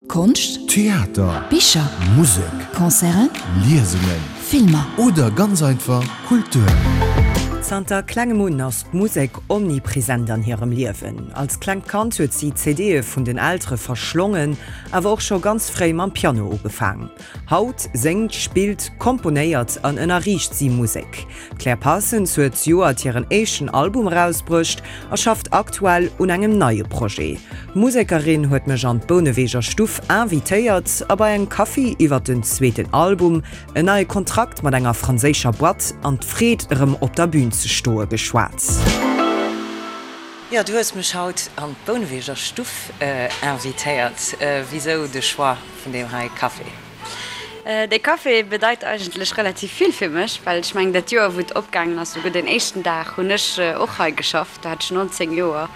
Konscht, Theater, Bicher, Musek, Concerten, Liesungen, Filmer. Oder ganz einfach Kultur. Zanter klengem un ass d'Musek omnipresent an hirem Liewen. Als klengt Kand huet si CDe vun den Eltere verschlongen, awer och scho ganz fréi mam Piano ugefaang. Haut séngt, spillt, komponéiert an ënnerriicht si Musek. D'Claire Parsons huet zejoert hiren éischten Album erausbruecht a schafft aktuell un engem neie Projet. D'Musekerin huet mech an d'Bouneweger Stuff invitéiert a bei engem Kaffi iwwer den zweeten Album, en neie Kontrakt mat enger franséischer Boîte an d'Freed erëm op der Bün ze stoe geschwat. Jo, du hues mech haut an d'Bouneweger Stuff invitéiert. Wisou de Choix vun deem hei Café? Dee Café bedeit eigentlech relativ vill fir mech, well ech mengen dat Joer wou et opgaangen ass, souguer den éischten Dag, hunn ech och hei geschafft. Do hat ech 19 Joer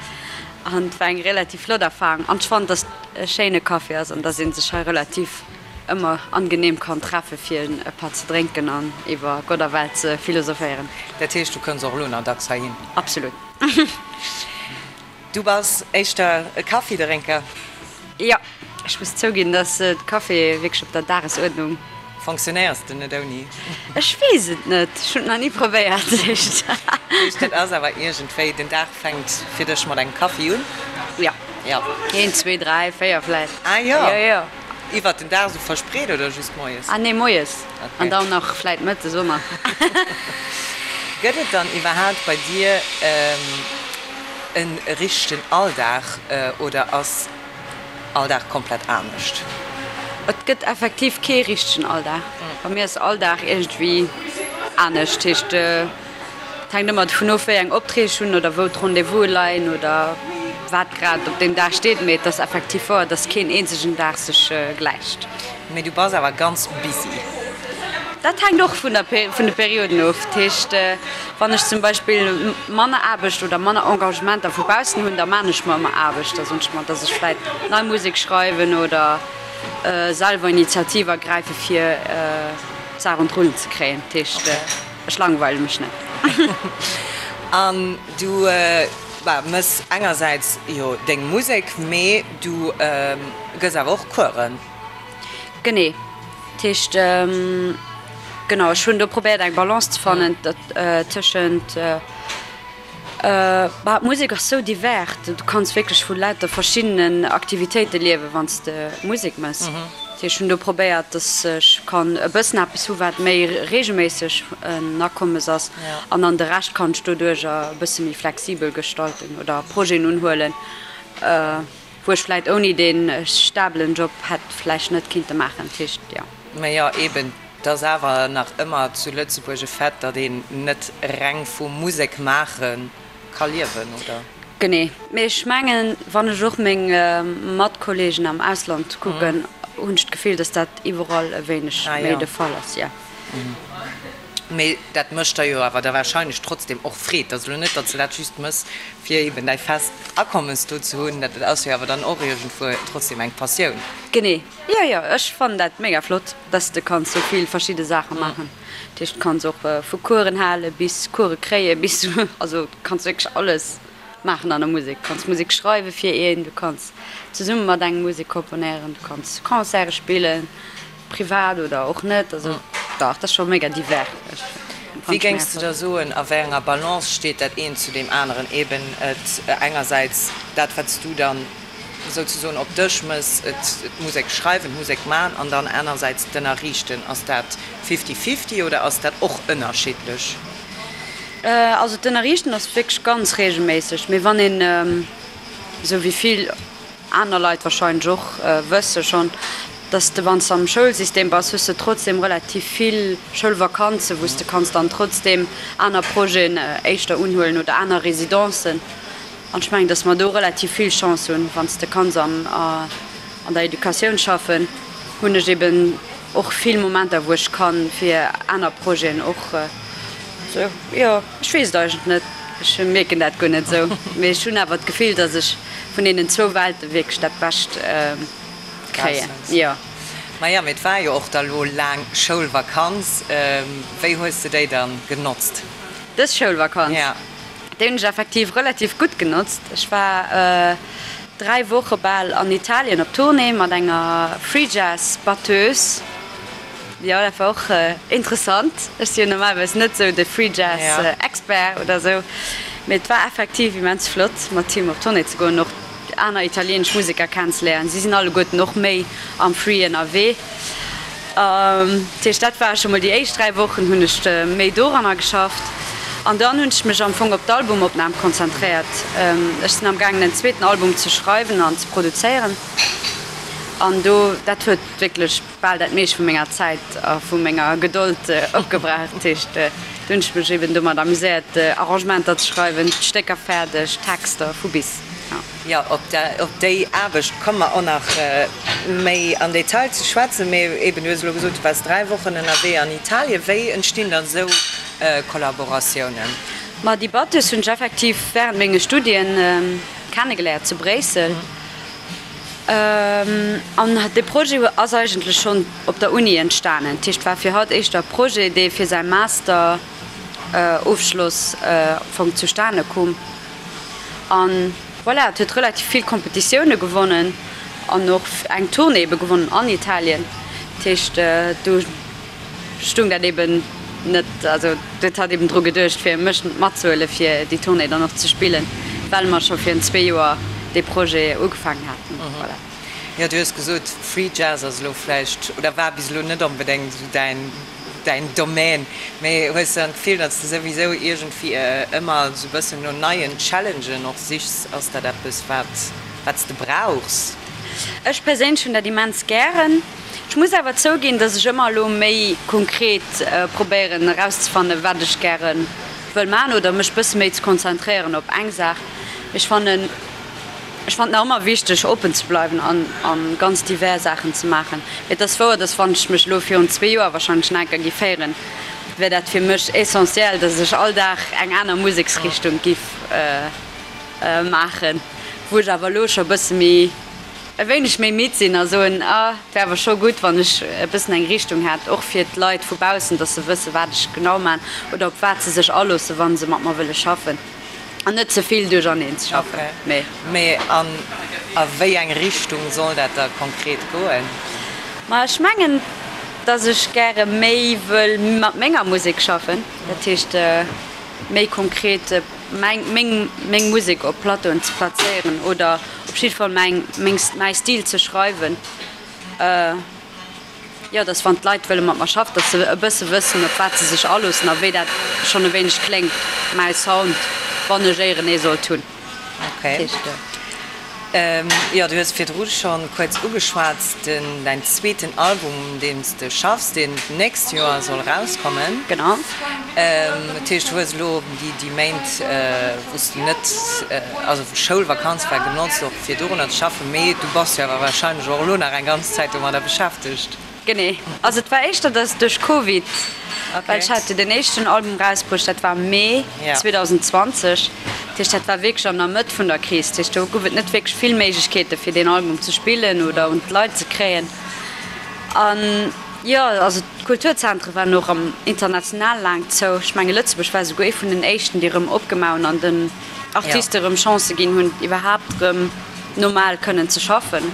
an et war eng relativ flott Erfarung an ech fannen, dass et e schéine Café ass an dass ee sech hei relativ ëmmer angenehm kann treffe fir e Patt ze drénken an iwwer Gott a Welt ze philosophéieren. Dat heescht, du kënns och elo nach dacks heihin? Absolut. Du bass éischter e Kaffidrénker? Jo, ech muss zouginn, dass de Café wierklech op der Dagesuerdnung. Fonctionnéiers de net ouni? Ech weess et net, ech hunn et nach ni probéiert. Heescht dat ass awer iergendwéi, den Dag fänkt fir dech mat engem Kaffi un? Jo. Jo. Een, zwee, dräi, véier vläicht. Ah jo. Jo, jo. Iwwert den Dag esou verspreet oder just moies? Ah nee, moies. An dann nach vläit mëttes och nach. Gëtt et dann iwwerhaapt bei dir e richtegen Alldag oder ass all Dag komplett anescht? Et gëtt effektiv kee richtegen Alldag. Bei mir ass all Dag iergendwéi anescht. Heescht, et hänkt ëmmer dovun of, wéi eng Opträg ech hunn oder wou d'Rendez-vouse leien oder wat grad op deem Dag steet. Mee et ass effektiv wouer, dass keen eenzegen Dag sech gläicht. Mee du bass awer ganz busy. Dat hänkt och vun der vun de Perioden of. Dat heescht, wann ech zum Beispill manner Aarbecht oder manner Engagementer vu baussen hunn, da maan ech mer ëmmer Aarbecht. Da soen ech mer, dass ech vläit nei Musek schreiwen oder selwer Initiativ ergräife fir d'Saach un d'Rullen ze kréien. Dat heescht, ech langweile mech net. An du mëss engersäits jo deng Musek, mee du gëss awer och Coursen. Genee. Dat heescht, genau, ech hunn do probéiert eng Balance ze fannen tëschent, bah, d'Musek ass sou divers, du kanns wierklech vu lauter verschiddenen Aktivitéite liewen, wann s de Musek mëss. Dat heescht, ech hunn do probéiert, datt ech kann e bëssen eppes hu wat méi reegelméisseg en Akommes ass an dann de Rescht kann ech doduercher e bësse méi flexibel gestalten oder Projeten unhuelen. Wou ech vläit ouni dee stabelen Job hätt vläicht net kinnte maachen. Dat heescht, jo. Mä jo, eben, et ass awer nach ëmmer zu Lëtzebuerg e Fait, datt een net reng vu Musek maache ka liewen, oder? Genee. Mee ech mengen, wann ech och meng Matkolleegen am Ausland kucken, hunn ech d'Gefill, datt dat iwwerall e wéineg méi de Fall ass, jo. Mee dat mécht der jo awer da wahrscheinlech trotzdem och Freed. Et ass elo net, datt s de dat just mëss, fir eben däi fest Akommes do ze hunn. Dat ass jo awer dann och iergendwuer trotzdem eng Passioun. Genee, jo jo, ech fannen dat mega flott, dass de kanns sou vill verschidde Saache maachen. Dat heescht, du kanns och vu Coursen hale bis Course kréie bis, also du kanns wierklech alles maachen an der Musek. Du kanns Musek schreiwe fir een, du kanns zesumme mat engem Musek komponéieren, du kanns Concerte spillen. Privat oder och net, also dach, dat ass scho mega divers. Wéi géings de da soen, a wéi enger Balance steet dat eent zu deem aneren? Eben et engersäits dat, wat s du dann souzesoen op dech mëss, et d'Musek schreiwen, d'Musek man, an dann anersäits d'Ënnerriichten. Ass dat fifty-fifty oder ass dat och ënnerschiddlech? Also d'Ënnerriichten ass wierklech ganz reegelméisseg, mee wann een, esou wéi vill aner Leit wahrscheinlech och wësse schonn, dass de wann s de am Schoulsystem bass, hues de trotzdem relativ vill Schoulvakanzen, wou s de kanns dann trotzdem aner Projeten éischter unhuelen oder aner Residencen. An ech mengen, dass mer do relativ vill Chance hunn, wann s de kanns am an der Educatioun schaffen, hunn ech eben och vill Momenter, wou ech kann fir aner Projeten och sou, jo. Ech weess et eigentlech net, ech mierken dat guer net esou, mee ech hunn awer d'Gefill, datt ech vun deenen zwou Welte wierklech dat Bescht kréien, jo. Maja, mee et war jo och da lo laang Schoulvakanz. Wéi hues de déi dann genotzt? Dës Schoulvakanz? Ja. Déi hunn ech effektiv relativ gutt genotzt. Ech war. 3 Woche bal an Italien op Tournée mat enger Free Jazz Batteuse. Jo, dat war och interessant. Ech si jo normalerweis net sou de Free Jazz Expert oder sou, mee et war effektiv immens flott mat him op Tournée ze goen, och aner italienesch Museker kennenzeléieren. Si sinn alleguerten och méi am Free ënnerwee. Dat heescht, dat war scho mol déi éischt 3 Wochen hunn ech méi doranner geschafft. An dann hunn ech mech am Fong op d'Albumopnam konzentréiert. Ech sinn am gaangen en zweeten Album ze schreiwen an ze produzéieren an do, dat huet wierklech bal dat meescht vu menger Zäit a vu menger Gedold opgebraucht. Dat heescht, do hunn ech mech eben domat amuséiert, Arrangementer ze schreiwen, d'Stécker fäerdeg, Texter vu bis. Jo, op déi Aarbecht komme mer och nach méi am Detail ze schwätzen. Mee eben, du hues elo gesot, du waars 3 Wochen ënnerwee an Italien. Wéi entstinn dann esou Kollaboratiounen? Ma déi Batteuse hunn ech effektiv wärend menge Studien kennegeléiert zu Bréissel. An de Projet ass eigentlech schonn op der Uni entstanen. Dat heescht, war fir hatt éischter e Projet, dee fir säi Master-Ofschloss am Fong zustane koum. An voilà, et huet relativ vill Competitioune gewonnen an och eng Tournée ebe gewonnen an Italien. Dat heescht, do stung dat eben net, also do huet hatt eben dru geduecht, fir mech matzehuele fir déi Tournée dann och ze spillen, well mer scho virun zwee Joer dee Projet ugefaangen haten. Voilà. Jo, du hues gesot, Free Jazz ass elo vläicht oder war bis elo net onbedéngt esou däin däin Domaine, mee hues de dann d'Gefill, datt s de souwisou iergendwéi ëmmer esou e bëssen no neien Challengen och sichs? Ass dat eppes, wat wat s de brauchs? Ech perséinlech hunn dat immens gären. Ech muss awer zouginn, datt ech ëmmer elo méi konkret probéieren erauszefannen, wat ech gäre wëll maachen oder mech bësse méi ze konzentréieren op eng Saach. Ech fannen. Ech fannen nach ëmmer wichteg oppen ze bleiwen an an ganz divers Saachen ze maachen. Mee et ass wouer, dass wann ech mech elo virun zwee Joer wahrscheinlech nach eng Kéier giff héieren, wär dat fir mech essentiel, dass ech all Dag eng aner Museksrichtung giff maachen. Wou ech awer elo scho e bësse méi, e wéineg méi midd sinn a soen, ah et wär awer scho gutt wann ech e bëssen eng Richtung hätt, och fir d'Leit vu baussen, dass se wësse wat ech genau maan oder op wat se sech aloosse wa se mat mer wëlle schaffen. An net ze vill duercherneen ze schaffen, mee. Mee an a wéi eng Richtung soll dat da konkret goen? Ma ech mengen, dass ech gäre méi wëll mat menger Musek schaffen, dat heescht méi konkret meng meng meng Musek op Plateauen ze plazéieren oder op jidde Fall mäin meng mäi Stil ze schreiwen. Jo, dass wann d'Leit wëlle mat mer schaffen, dass se e bësse wëssen, op wat se sech aloossen a wéi dat schonn e wéineg kléngt, mäi Sound, wann ech éieren ee sollt hunn. Okay. Jo, du hues virdru scho kuerz ugeschwat, den, däin zweeten Album, un deem s de schaffs, deen d'nächst Joer soll erauskommen. Genau. Dat heescht, du hues elo déi, déi Méint, wou s de net, also wou Schoulvakanz war, genotzt och fir dorunner ze schaffen, mee du bass jo awer wahrscheinlech och elo nach eng ganz Zäit domadder beschäftegt. Genee. Also et war éischter, dass duerch Covid, well ech hat jo den éischten Album erausbruecht, dat war Mee 2020, dat heescht dat war wierklech an der Mëtt vun der Kris, dat heescht do gouf et net wierklech vill Méiglechkeete fir deen Album ze spillen oder un d'Leit ze kréien. An jo, also d'Kulturzentre waren och am international laang zou. Ech menge Lëtzebuerg war esouguer ee vun den éischten, déi erëm opgemaach hunn an den Artiste erëm Chancë ginn hunn, iwwerhaapt erëm normal kënnen ze schaffen.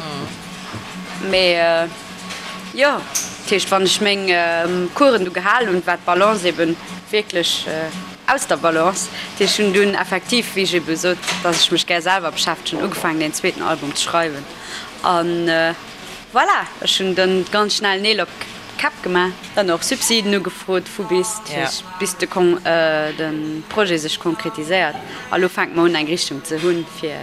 Mee jo, dat heescht, wann ech meng Coursen du gehal hunn, war d'Balance ebe wierklech aus der Balance. Dat heescht, ech hunn dunn effektiv, wéi ech ebe sot, datt ech mech gär selwer beschäftegen, ugefaangen deen zweeten Album ze schreiwen. An voilà, ech hunn dann ganz schnell Neel op d'Käpp gemaach, dann och Subsiden ugefrot vu bis, bis de de Projet sech konkretiséiert. A lo fänke mer un eng Richtung ze hunn fir,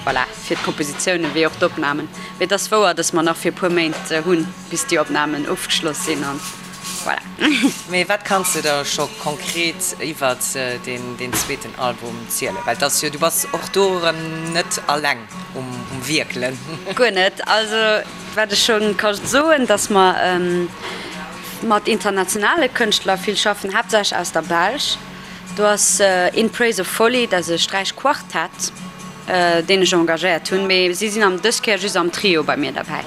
voilà, fir d'Kompositiounen wéi och d'Opnamen. Mee et ass wouer, datt mer nach fir e puer Méint hunn, bis déi Opnamen ofgeschloss sinn an voilà. Mee wat kanns de der scho konkret iwwert deen zweeten Album zielen? Well et ass jo, du bass och do erëm net alleng um Wierkelen. Guer net. Also Wat ech scho ka soen, datt mer mat internationale Kënschtler vill schaffen, haaptsächlech aus der Belsch. Do ass In Praise of Folly, dat ass e Sträichquartett, deen ech engagéiert hunn, mee si sinn am dës Kéier just am Trio bei mir derbäi.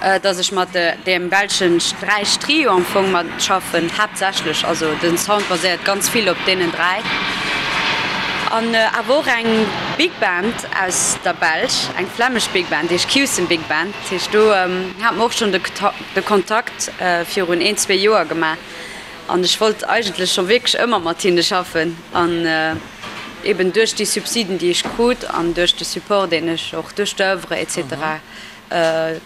Datt ech mat deem belsche Sträichtrio am Fong mat schaffen, haaptsächlech. Also den Sound baséiert ganz vill op deenen 3. An awer och eng. Big Band aus der Belsch, eng flämmesch Big Band, déi heescht Q'sen Big Band. Dat heescht, do hate mer och schonn de Kontakt virun een, zwee Joer gemaach an ech wollt eigentlech scho wierklech ëmmer mat hinne schaffen an eben duerch déi Subsiden, déi ech krut an duerch de Support, deen ech och duerch d'Oeuvre et cetera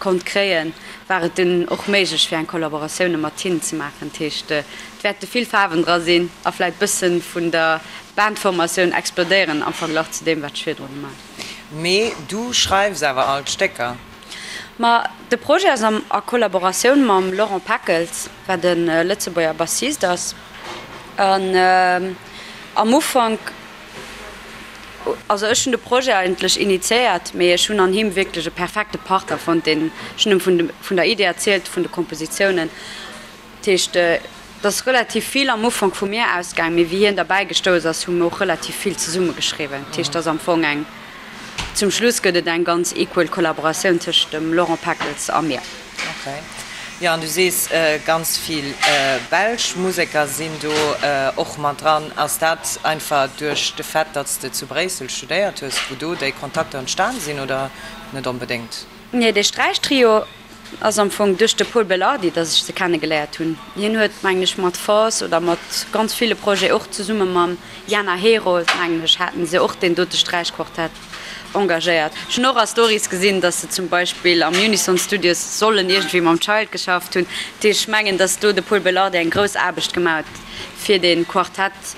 konnt kréien, war et dunn och méiglech fir eng Kollaboratioune mat hinnen ze maachen. Dat heescht, et wäerte vill Faarwen dra sinn a vläit bësse vun der Bandformatioun explodéieren am Verglach zu deem, wat ech virdru gemaach hunn. Mee du schreifs awer all d'Stécker? Ma de Projet ass am a Kollaboratioun mam Laurent Peckels, wat e Lëtzebuerger Bassist ass. An am Ufank, also ech hunn de Projet eigentlech initiéiert, mee ech hunn an him wierklech e perfekte Partner fonnt, deen, ech hunn em vun vun der Idee erzielt, vun de Kompositiounen. Dat heescht, et ass relativ vill am Ufank vu mir ausgaang, mee wéi hien derbäi gestouss ass, hu mir och relativ vill zesumme geschriwwen. Dat heescht, et ass am Fong eng, zum Schluss gëtt et eng ganz equal Kollaboratioun tëscht dem Laurent Peckels a mir. Ok. Jo, an du sees, ganz vill belsch Museker sinn do och mat dran. Ass dat einfach duerch de Fait, datt s de zu Bréissel studéiert hues, wou do déi Kontakter entstan sinn, oder net onbedéngt? Nee, dee Sträichtrio ass am Fong duerch de Pol Belardi, datt ech se kenne geléiert hunn. Hien huet, mengen ech, mat Force oder mat ganz ville Projete, och zesumme mam Jana Herold, mengen ech, haten se och deen dote Sträichquartett engagéiert. Ech hunn och a Stories gesinn, datt se zum Beispill am Unison Studios sollen iergendwéi mam Child geschafft hunn. Dat heescht, ech mengen, datt do de Pol Belardi eng grouss Aarbecht gemaach huet, fir dee Quartett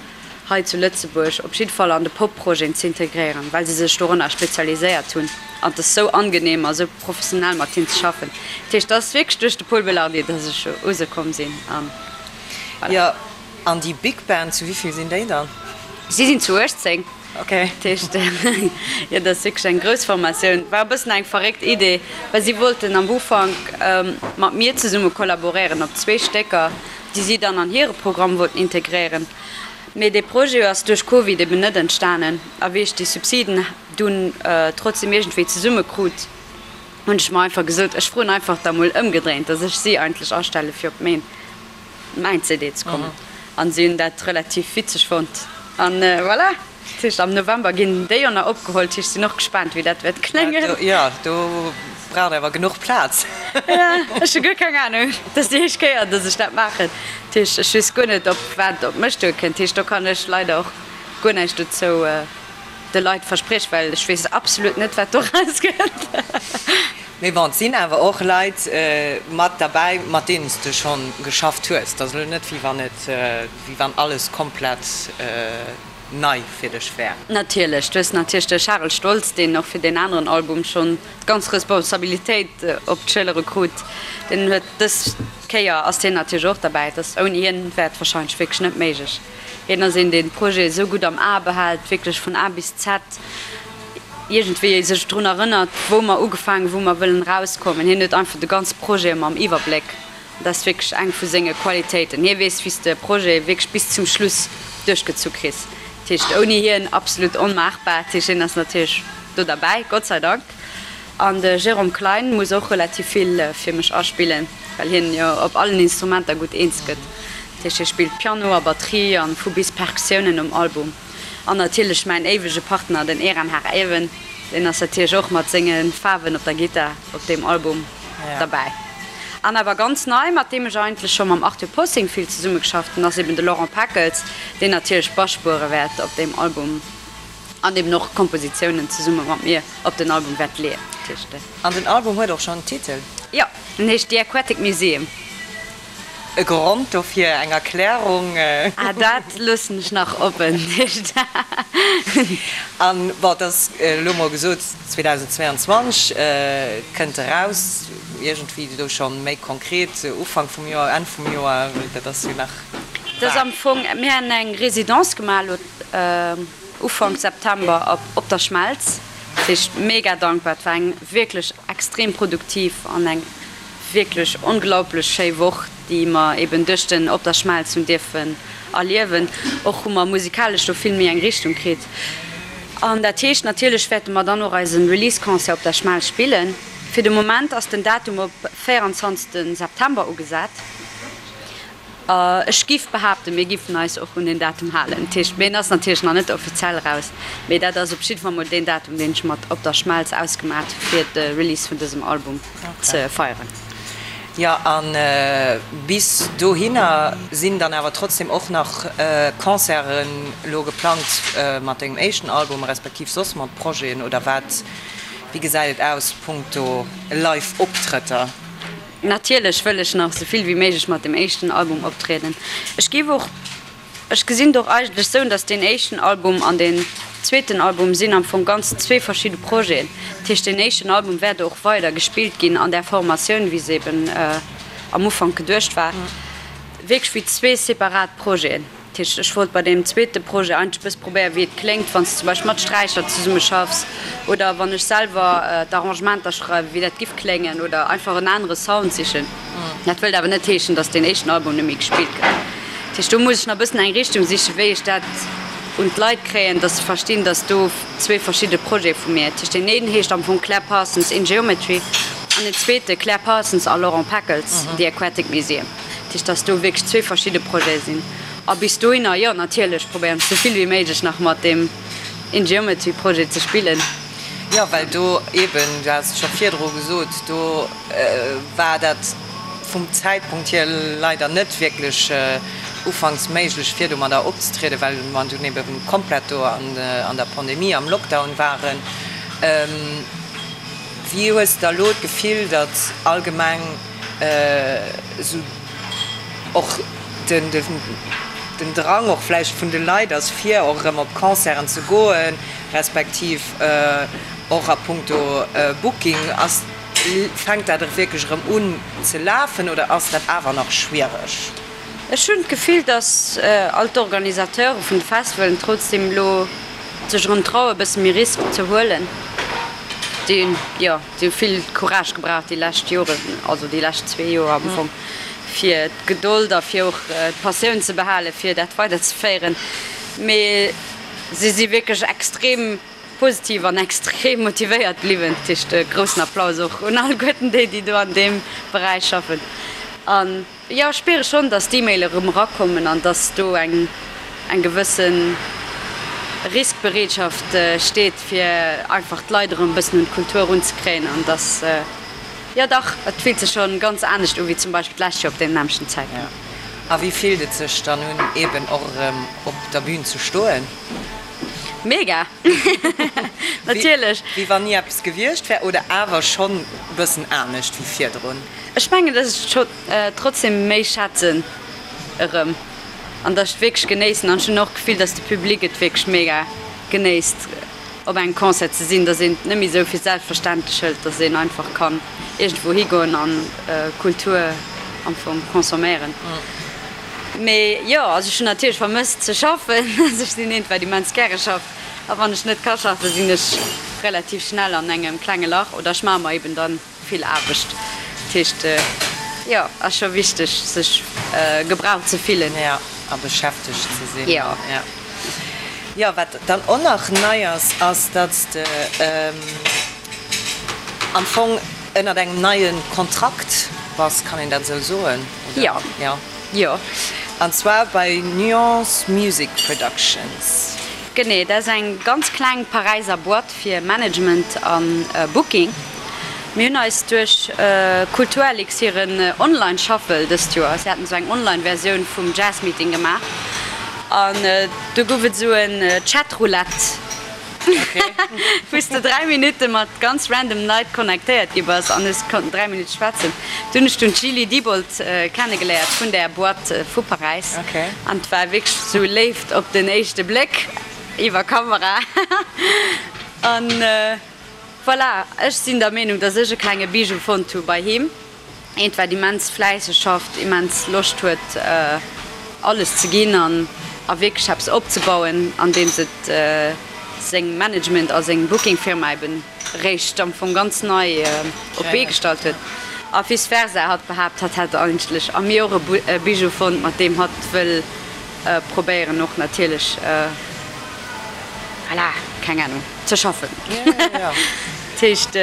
hei zu Lëtzebuerg op jidde Fall an de Pop-Projeten z'integréieren, well se sech dorënner spezialiséiert hunn an et ass sou angenehm a sou professionell mat hinn ze schaffen. Dat heescht, et ass wierklech duerch de Pol Belardi, dass ech u se komm sinn an voilà. Jo, an déi Big Band, zu wéi vill sinn déi dann? Si sinn zu 18. Ok. Dat heescht, jo, dat ass wierklech eng grouss Formatioun. War e bëssen eng verréckt Idee, well si wollten am Ufank mat mir zesumme kollaboréieren op zwee Stécker, déi si dann an hire Programm wollten integréieren. Mee dee Projet ass duerch Covid eben net entstanen. A wéi ech déi Subsiden dunn trotzdem iergendwéi zesumme krut, hunn ech mer einfach gesot, ech froen einfach da mol ëmgedréint, datt ech si eigentlech astelle fir op mäin mäin CD ze kommen. An si hunn dat relativ witzeg fonnt. An voilà. Dat heescht am November ginn déi jo nach opgeholl. Dat heescht, ech sinn och gespaant wéi dat wäert kléngen. Jo, do braucht awer genuch Plaz. Jo, ech hu guer keng Anung. Dat ass déi éischt Kéier, datt ech dat maachen. Dat heescht, ech weess guer net, op wat op mech duerkënnt. Dat heescht, do kann ech leider och guer näischt dozou de Leit verspriechen, well ech weess absolut net, wat do erauskënnt. Mee bon, et sinn awer och Leit mat derbäi, mat deenen s de schonn geschafft hues. Et ass elo net, wéi wann et, wéi wann alles komplett nei fir dech wär. Natierlech, du hues natierlech de Charel Stoltz, deen och fir deen aneren Album schonn d'ganz Responsabilitéit op d'Schëllere krut. Deen huet dës Kéier ass hien natierlech och derbäi. Et ass ouni hien wär et warscheinlech wierklech net méiglech. Hien ass een, deen d'Projete esou gutt am A behält, wierklech vun A bis Z iergendwéi sech drun erënnert, wou mer ugefaangen, wou mer wëllen erauskommen. Hien huet einfach de ganze Projet ëmmer am Iwwerbléck. Dat ass wierklech eng vu senge Qualitéiten. Hie weess, wéi s de e Projet wierklech bis zum Schluss duerchgezu kriss. Dat heescht, ouni hien absolut onmaachbar. Dat heescht, hien ass natierlech do derbäi, Gott sei Dank. An de Jérôme Klein muss och relativ vill fir mech aspillen, well hien jo op allen Instrumenter gutt eens gëtt. Dat heescht, hie spillt Piano a Batterie an vu bis Perkussiounen um Album. An natierlech mäin éiwege Partner, den Eran Har Even, deen ass natierlech och mat senge Faarwen op der Gittar op deem Album derbäi. An awer ganz nei, mat deem ech eigentlech scho mam Arthur Possing vill zesummegeschafft hunn, ass eben de Laurent Peckels, deen natierlech Basspuere wäert op deem Album an eben och Kompositiounen zesumme mat mir op den Album wäert leeën. An den Album huet och schonn en Titel? Jo, en heescht The Aquatic Museum. E Grond dofir, eng Erklärung? Ah, dat loossen ech nach oppen. An bon, et ass elo mol gesot, 2022 kënnt eraus, iergendwéi do scho méi konkret, Ufank vum Joer, Enn vum Joer, dat ass jo nach Dat ass am Fong, mir han eng Résidence gemaach elo Ufank September op der Schmelz, dat heescht mega dankbar, et war eng wierklech extrem produktiv an eng Wierklech onglaublech schéi Woch, déi mer eben duerch den Op der Schmelz hunn dierfen erliewen. Och hu mer musikalesch do vill méi eng Richtung kritt. An dat heescht, natierlech wäerte mer dann och eise Release-Concert op der Schmelz spillen. Fir de Moment ass den Datum op 24 September ugesat. Ech giff behaapten, mir giffen eis och un deen Datum halen. Dat heescht, mee en ass natierlech nach net offiziell eraus, mee dat ass op jidde Fall mol deen Datum, deen ech mat Op der Schmelz ausgemaat hu fir de Release vun dësem Album ze feieren. Jo, a bis dohinner sinn dann awer trotzdem och nach Concerten elo geplangt mat dengem éischten Album, respektiv soss mat Projeten, oder wat? Wéi gesäit et aus punkto Live-Optrëtter? Natierlech wëll ech nach esou vill wéi méiglech mat dem éischten Album optrieden. Ech géif och, ech gesinn et och eigentlech esou, datt deen éischten Album an deen zweeten Album sinn am Fong ganz zwee verschidde Projeten. Dat heescht, deen éischten Album wäert och weider gespillt ginn an där Formatioun, wéi se eben am Ufank geduecht war, wierklech wéi zwee separat Projeten. Dat heescht, ech wollt bei deem zweete Projet eigentlech e bësse probéieren, wéi et kléngt, wann s de zum Beispill mat Sträicher zesumme schaffs oder wann ech selwer d'Arrangementer schreiwen, wéi dat giff kléngen oder einfach en anere Sound sichen. Dat wëllt awer net heeschen, datt deen éischten Album net méi gespillt gëtt. Dat heescht, do muss ech nach e bëssen eng Richtung sichen, wéi ech dat un d'Leit kréien, datt se verstinn, datt do zwee verschidde Projete vu mir. Dat heescht, deen een heescht am Fong Claire Parsons in Geometry an deen zweete Claire Parsons a Laurent Peckels, The Aquatic Museum. Dat heescht, dass do wierklech zwee verschidde Projete sinn. A bis dohinner, jo, natierlech probéieren ech sou vill wéi méiglech nach mat deem In-Geometry-Projet ze spillen. Jo, well do eeben, du has et scho virdru gesot, do war dat vum Zäitpunkt hier leider net wierklech ufanks méiglech, fir domadder opzetrieden, well mer dunn ebe komplett do an der Pandemie, am Lockdown waren. Wéi hues de da elo d'Gefill, datt allgemeng esou och den den Drang och vläicht vun de Leit ass, fir och erëm op Concerten ze goen, respektiv och a punkto Booking, ass, fänkt dat wierklech erëm un ze lafen oder ass dat awer nach schwiereg? Ech hunn d'Gefill, datt all d'Organisateure vun de Festivalen trotzdeem elo sech erëm traue bësse méi Risk ze huelen. Déi hunn, jo, déi hu vill Courage gebraucht déi lescht Joren, also déi lescht zwee Joer am Fong, fir d'Gedold a fir och d'Passioun ze behalen, fir dat weiderzeféieren. Mee si si wierklech extrem positiv an extrem motivéiert bliwwen. Dat heescht e groussen Applaus och un alleguerten déi, déi do an deem Beräich schaffen. An Jo, ech spiere schonn, dass d'E-Maile erëm erakommen an dass do eng eng gewësse Riskbereetschaft steet, fir einfach d'Leit erëm e bëssen un d'Kultur erunzekréien an dass, jo dach, et fillt sech schonn ganz anescht u wéi zum Beispill d'lescht Joer op deem nämmlechten Zäitpunkt. A wéi fillt et sech dann un, eeben och erëm op der Bühn ze stoen? Mega! Natierlech! Wéi wann ni eppes gewiescht wär oder awer schonn e bëssen anescht wéi virdrun? Ech mengen, dass ech et scho trotzdem méi schätzen erëm an dass ech et wierklech genéissen. An ech hunn och d'Gefill, dass de Public et wierklech mega genéisst, op engem Concert ze sinn, dass een et net méi esou fir selbstverständlech hëlt, dass een einfach kann iergendwou higoen an Kultur am Fong consomméieren. Mee jo, also ech hunn natierlech vermësst ze schaffen. Also ech sinn eent, wat immens gäre schafft. A wann ech net ka schaffen, sinn ech relativ schnell an engem klenge Lach oder ech maache mer eben dann vill Aarbecht. Dat heescht, jo, ass scho wichteg, sech gebraucht ze fillen. Jo, a beschäftegt ze sinn. Jo. Jo, wat dann och nach nei ass, ass, datt s de am Fong ënnert engem neie Kontrakt bass, kann een dat esou soen, oder? Jo. Jo. Jo. An zwar bei Nuance Music Productions. Genee, dat ass eng ganz kleng Paräiser Boîte fir Management a Booking. Mir hunn eis duerch Kulturelix hiren Online Shuffle dëst Joer, si haten esou eng Online Versioun vum Jazz Meeting gemaach an do gouf et esou en Chatroulette. Wou s de 3 Minutte mat ganz random Leit connectéiert gi bass an es konnten 3 Minutte schwätzen. Do hunn ech dunn d'Julie Diebold kennegeléiert vun där Boîte vu Paräis an et war wierklech sou Léift op den éischte Bléck iwwer Kamera. An voilà, ech sinn der Meenung, dass ech e klenge Bijou fonnt hu bei him. Eent wat immens fläisseg schafft, immens Loscht huet alles ze ginn an a wierklech eppes opzebauen, andeems et seng Management a seng Booking Firma eben réischt am Fong ganz nei op d'Bee gestallt huet. A vice versa, hatt behaapt hatt hätt eigentlech a mir och e Bijou fonnt, mat deem hatt wëll probéieren och natierlech, voilà, keng Ahnung, ze schaffen. Dat heescht,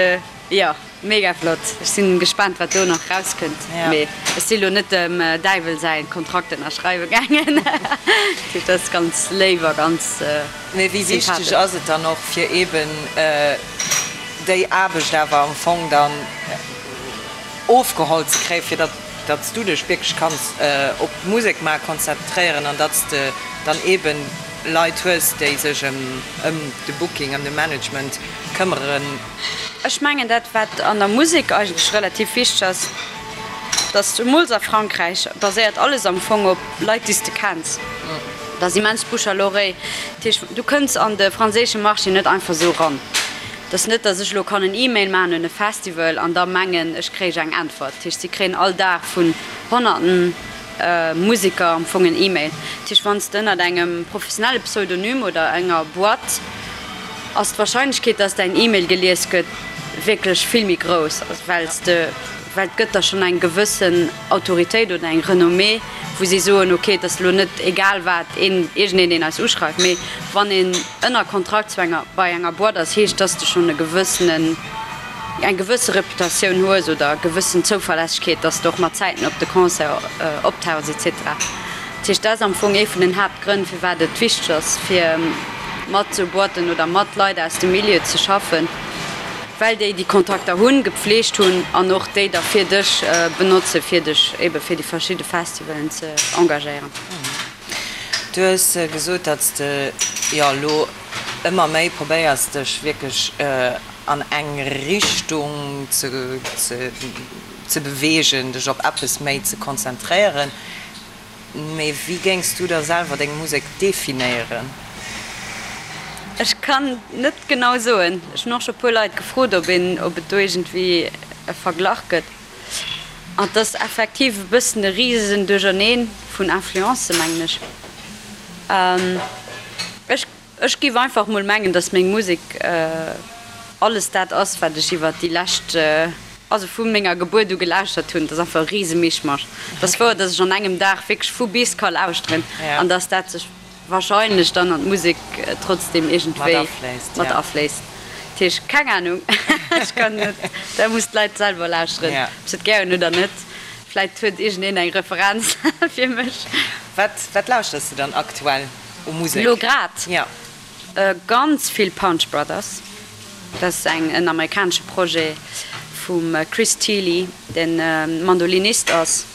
jo. Mega flott. Ech sinn gespaant wat do nach rauskënnt. Mee ech si lo net dem Däiwel säin Kontrakt ënnerschreiwe gaangen. Dat heescht dat ass ganz léif a ganz sympathesch. Mee wéi wichteg ass et dann och fir eben déi Aarbecht awer am Fong dann ofgeholl ze kréien, fir datt datt s du dech wierklech kanns op d'Musek maache konzentréieren an datt s de dann eben Leit hues, déi sech ëm de Booking, ëm de Management këmmeren? Ech mengen dat wat an der Musek eigentlech relativ wichteg ass, dass zemools a Frankräich baséiert alles am Fong op Leit déi s de kenns. Dat ass immens Bouche à l'oreille. Dat heescht du kënns an de franséische Marché net einfach esou ran. Et ass net, dass ech elo kann en E-Mail maachen un e Festival an da mengen ech kréich eng Äntwert. Dat heescht si kréien all Dag vun honnerten Museker am Fong en E-Mail. Dat heescht wann s de ënnert engem professionelle Pseudonym oder enger Boîte ass d'Wahrscheinlechkeet, dass däin E-Mail gelies gëtt, wierklech vill méi grouss, well s de, well et gëtt der schonn eng gewëssen Autoritéit oder eng Renommée, wou si soen, ok, et ass elo net egal wat, een, iergendeen, deen eis uschreift, mee wann een ënner Kontrakt zu enger, bei enger Boîte ass, heescht, dass de schonn e gewëssenen, eng gewësse Reputatioun hues oder e gewëssen Zouverlässegkeet, dass de och mat Zäiten op de Concert optauchs et cetera. Dat heescht, dat ass am Fong ee vun den Haaptgrënn, firwat et wichteg ass, fir mat esou Boîten oder mat Leit aus dem Milieu ze schaffen, well déi déi Kontakter hunn, gepflegt hunn an och déi da fir dech benotzen, fir dech ebe fir déi verschidde Festivalen ze engagéieren. Du hues gesot, datt s de jo elo ëmmer méi probéiers, dech wierklech an eng Richtung ze beweegen, dech op eppes méi ze konzentréieren. Mee wéi géings du da selwer deng Musek definéieren? Ech kann net genau soen. Ech hunn och scho puer Leit gefrot, ob een, ob et do iergendwéi e Verglach gëtt. An et ass effektiv e bëssen e risegen Duercherneen vun Influencen, mengen ech. Ech. Ech giff einfach mol mengen, dass meng Musek alles dat ass, wat ech iwwert déi lescht, also vu menger Gebuert u gelauschtert hunn. Dat ass einfach e rise Mischmasch. Et ass wouer, dass ech an engem Dag wierklech vu bis ka lauschteren an dass dat sech wahrscheinlech dann an d'Musek trotzdem iergendwéi mat afléisst. Dat heescht, keng Ahnung, ech kann net, dat muss d'Leit selwer lauschteren, ob se et gär hunn oder net. Vläit huet iergendeen eng Referenz fir mech. Wat lauschters de dann aktuell? U Musek? Lo grad? Ja. Ganz vill Punch Brothers. Dat ass eng en amerikanesche Projet vum Chris Thile, deen Mandolinist ass,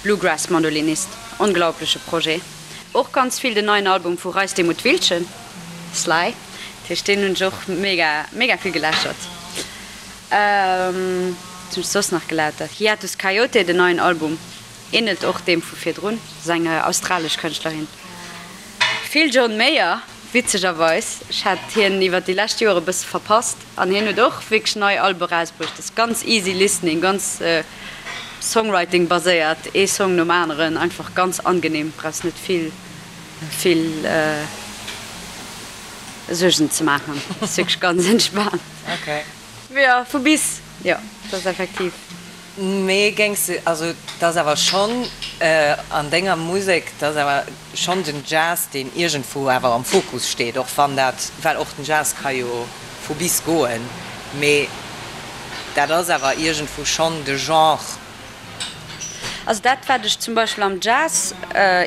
Bluegrass Mandolinist. Onglaubleche Projet. Och ganz vill den neien Album vu Reis Demuth Wiltgen, Sly. Dat heescht deen hunn ech och mega mega vill geläschert. Wat hunn ech soss nach gelauschtert? Hiatus Kaiyote, den neien Album. Ähnelt och deem vu virdrun, ass eng australesch Kënschtlerin. Vill John Mayer, witzegerweis. Ech hat hien iwwer déi lescht Joer e bësse verpasst an hien huet och wierklech nei Albe erausbruecht. Ass ganz easy listening, ganz Songwriting baséiert, ee Song nom aneren, einfach ganz angenehm, brauchs net vill vill Suergen ze maachen, ass wierklech ganz entspaant. Jo, vu bis, jo, dat ass effektiv. Mee géings de, also et ass awer schonn an denger Musek, et ass awer schonn den Jazz, deen iergendwou awer am Fokus steet, och wann dat, well och den Jazz ka jo vu bis goen, mee dat ass awer iergendwou schonn de Genre. Also dat wat ech zum Beispill am Jazz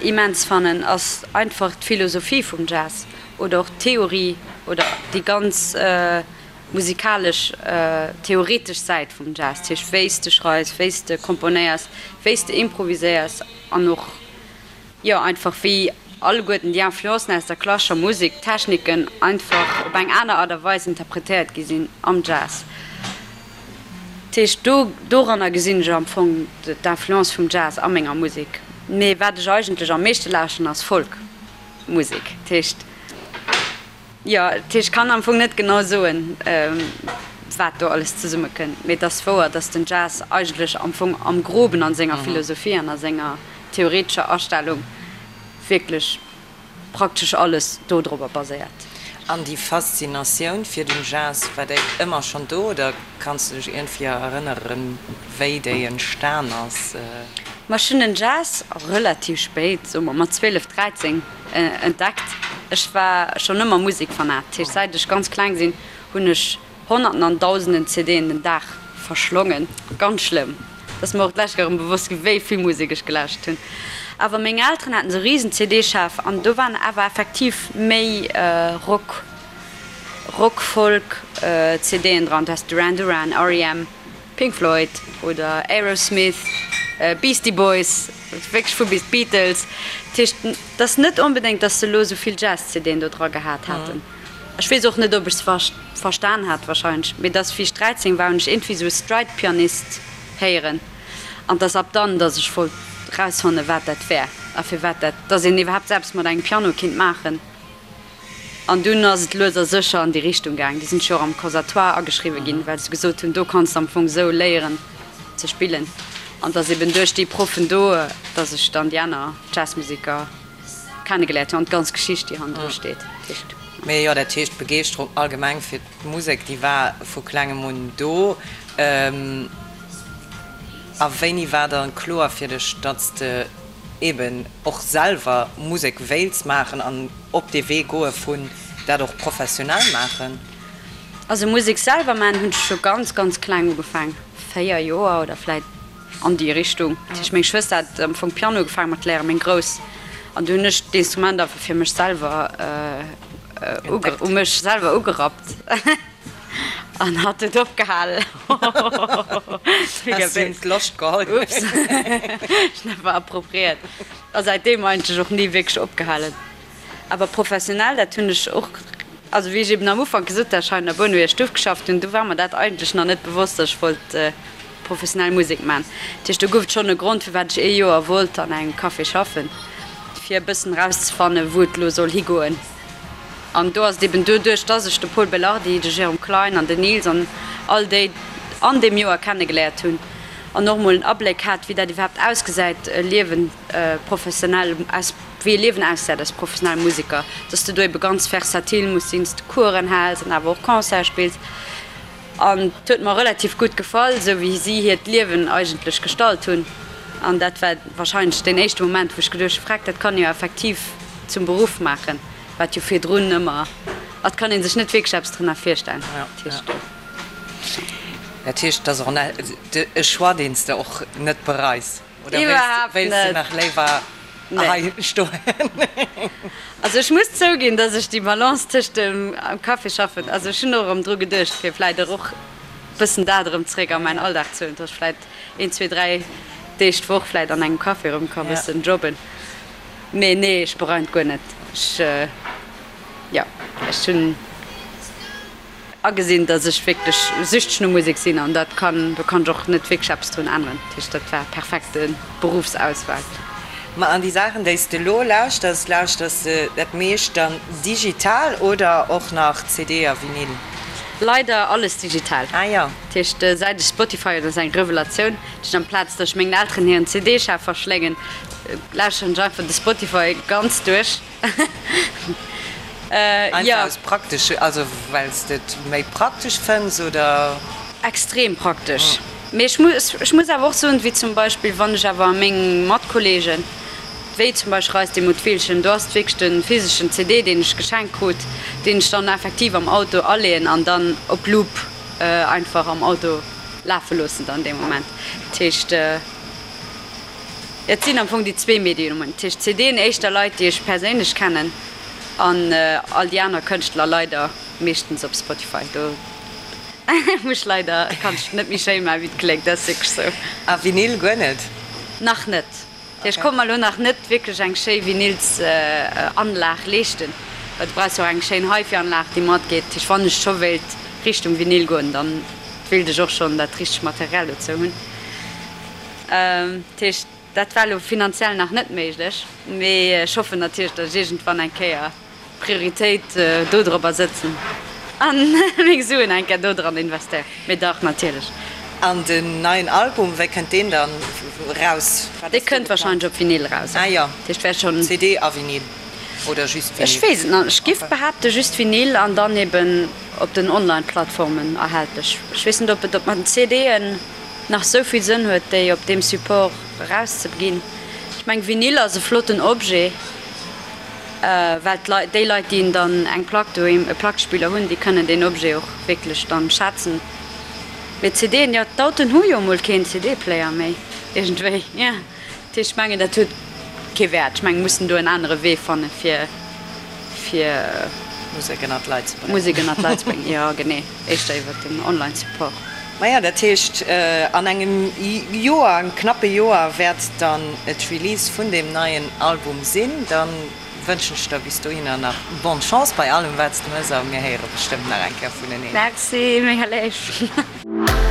immens fannen, ass einfach d'Philosophie vum Jazz oder och d'Theorie oder déi ganz, musikalesch, theoretesch Säit vum Jazz, dat heescht wéi s de schreifs, wéi s de komponéiers, wéi s de improviséiers an och, jo, einfach wéi alleguerten déi Influencen aus der klassescher Musek, d'Techniken einfach op eng aner Art a Weis interpretéiert gi sinn am Jazz. Dat heescht do, doranner gesinn ech am Fong d'Influence vum Jazz a menger Musek. Mee wat ech eigentlech am meeschte lauschteren ass Folk-Musek, dat heescht. Jo, dat heescht, ech kann am Fong net genau soen, wat do alles zesummekënnt, mee et ass wouer, datt den Jazz eigentlech am Fong am Groben a senger Philosophie an a senger theoretescher Astellung wierklech praktesch alles dodrobber baséiert. An déi Faszinatioun fir den Jazz, war déi ëmmer schonn do oder kanns du dech iergendwéi erënneren, wéi déi entstan ass? Ma ech hunn den Jazz relativ spéit, soe mer mat 12, 13, Entdeckt. Ech war schonn ëmmer Musekfanat, dat heescht säit ech ganz kleng sinn, hunn ech honnerten an dausenden CDen den Dag. verschlongen. Ganz schlëmm. Et ass mer och d'lescht Kéier erëm bewosst ginn, wéi vill Musek ech gelauschtert hunn. Awer meng Elteren haten esou risen CD-Schaf an do waren awer effektiv méi Rock, Rock, Folk CDen dran. Du has Duran Duran, R.E.M. Pink Floyd oder Aerosmith, Beastie Boys, wierklech vu bis, d'Beatles. Dat heescht, et ass net onbedéngt, datt se elo esou vill Jazz-CDen do dra gehat haten. Ech weess och net, ob ech se verstan hat, warscheinlech, mee dass wéi ech 13 war, hunn ech iergendwéi esou e Stride-Pianist héieren an 't ass ab dann, dass ech wollt rausfannen, wat dat wär a firwat dat, dass een iwwerhaapt sou eppes mat engem Piano kinnt maachen. An dunn ass et lues a sécher an déi Richtung gaang. Du sinn ech jo och am Conservatoire ageschriwwe ginn, well se gesot hunn, do kanns de am Fong esou léieren ze spillen. An 't ass eben duerch déi Proffen do, dass ech dann déi aner Jazzmuseker kennegeléiert hunn an d'ganz Geschicht, déi hannendru steet. Mee jo, dat heescht, d'Begeeschterung allgemeng fir d'Musek, déi war vu klengem un do. A wéini war dann kloer fir dech, datt s de eben och selwer Musek wéilts maachen an op dee Wee goe vun dat och professionell maachen? Also Musek selwer maachen hunn ech scho ganz, ganz kleng ugefaang, 4 Joer oder vläit An déi Richtung. Dat heescht, meng Schwëster hat am Fong Piano ugefaange mat léieren, meng Grouss, an du hunn ech d'Instrument einfach fir mech selwer, u mech selwer ugerappt an hatt huet opgehalen. Has him d'Loscht geholl. Ups, ech hunn einfach appropriéiert a säitdeem eigentlech och ni wierklech opgehalen. Awer professionell, dat hunn ech och, also wéi ech eben am Ufank gesot hat, ech hei an der Bournewier Stuff geschafft hunn, do war mer dat eigentlech nach net bewosst, datt ech wollt professionell Musek maachen. Dat heescht, do gouf et schonn e Grond, firwat ech ee Joer wollt an engem Café schaffen, fir e bëssen erauszefannen, wou et elo soll higoen. An do ass et eben doduerch, datt ech de Pol Belardi, de Jérôme Klein an den Nils an all déi an deem Joer kennegeléiert hunn an och emol en Abléck hat, wéi dat iwwerhaapt ausgesäit, e Liewen professionell aus. wéi e Liewen ausgesäit als professionelle Museker, dass de do ebe ganz versatil muss sinn, dass de Coursen häls an awer och Concerte spills. An et huet mer relativ gutt gefall, esou wéi si hiert Liewen eigentlech gestalt hunn. An dat war warscheinlech deen éischte Moment, wou ech geduecht hu, Freck, dat kann ee jo effektiv zum Beruff maachen, wat jo virdrun ëmmer, et kann ee sech net wierklech eppes drënner virstellen. Dat heescht. Dat heescht, et ass och e Choix, deen s de och net bereis? Oder Iwwerhaapt wéilst de net. nach léiwer Nee. hei stoen? Also ech muss zouginn, dass ech déi Balance tëscht dem am Café schaffen, also ech hunn och erëm dru geduecht, fir vläit och bëssen dat erëm zréck a mäin Alldag ze huelen, dass ech vläit een, zwee, dräi Deeg d'Woch vläit an engem Café erëm ka bëssen jobben. Mee nee, ech bereien et guer net. Ech, jo, ech hunn. Agesinn, dass ech wierklech süchteg no Musek sinn an dat kann, do kann ech och net wierklech eppes drun änneren. Dat heescht, dat war perfekte Beruffsauswahl. Ma an déi Saachen, déi s de elo lauschters, lauschters de dat meescht dann digital oder och nach CD a Vinyl? Leider alles digital. Ah jo. Dat heescht, säit ech Spotify hunn, ass eng Revelatioun, dat heescht, amplaz dass ech mengen Elteren hiren CD-Schaf verschléngen, lauschteren ech einfach de Spotify ganz duerch. Einfach aus praktesche, also well s de et méi praktesch fënns, oder? Extrem praktesch. Mee ech muss, ech muss awer och soen, wéi zum Beispill wann ech awer meng Matkollegen, wéi zum Beispill Reis de Muttwillchen, do ass et wierklech de physeschen CD, deen ech geschenkt krut, deen ech dann effektiv am Auto aleeën an dann op Loop einfach am Auto lafe loossen dann dee Moment. Dat heescht. Et sinn am Fong déi zwee Mediumen, dat heescht CDen éischter Leit, déi ech perséinlech kennen, an all déi aner Kënschtler leider meeschtens op Spotify. Do muss ech leider, kann ech net méi schéin maachen, wéi et kléngt, dat ass wierklech sou. A Vinyl guer net? Nach net. Dat heescht, ech konnt mer elo nach net wierklech eng schéi Vinylsanlag leeschten, well du brauchs jo och eng schéin HiFi-Anlag, déi matgeet. Dat heescht, wann ech scho wéilt Richtung Vinyl goen, dann wéilt ech och schonn dat richtegt Material dozou hunn. Dat heescht, dat war elo finanziell nach net méiglech, mee ech hoffen natierlech, datt ech iergendwann eng Kéier d'Prioritéit dodropper sëtzen a meng Suen eng Kéier dodran investéieren. Mee dach, natierlech. An den neien Album, wéi kënnt deen dann raus? Wat Dee ass do kënnt geplant? warscheinlech op Vinyl eraus. Ah jo, Dat heescht, wäert schonn. CD a Vinyl oder just Ech Vinyl? weess et nach net. Ech giff Okay. behaapten, just Vinyl an dann eben op den Online-Plattformen erhältlech. Ech weess net, ob et op mat den CDen. nach sou vill Sënn huet, déi op deem Support erauszeginn. Ech mengen, Vinyl ass e flotten Objet, well d'Leit, déi Leit, déi dann eng Plack doheem, e Plackespiller hunn, déi kënnen deen Objet och wierklech dann schätzen. Mee CDen, jo, d'Autoen hu jo emol keen CD-Player méi iergendwéi, jo. Dat heescht, ech mengen, dat huet kee Wäert. Ech mengen, mir mussen do en anere Wee fanne fir, fir. Musek ënnert d'Leit ze bréngen. Musek ënnert d'Leit ze bréngen, jo, genee. Éischter iwwer den Online-Support. Maja, dat heescht, an engem Joer, engem knappe Joer wäert dann d'Release vun deem neien Album sinn. Da wënschen ech der bis dohinner nach bonne Chance bei allem, wat s de mëss a mir héiere bestëmmt nach eng Kéier vuneneen. Merci, mega léif.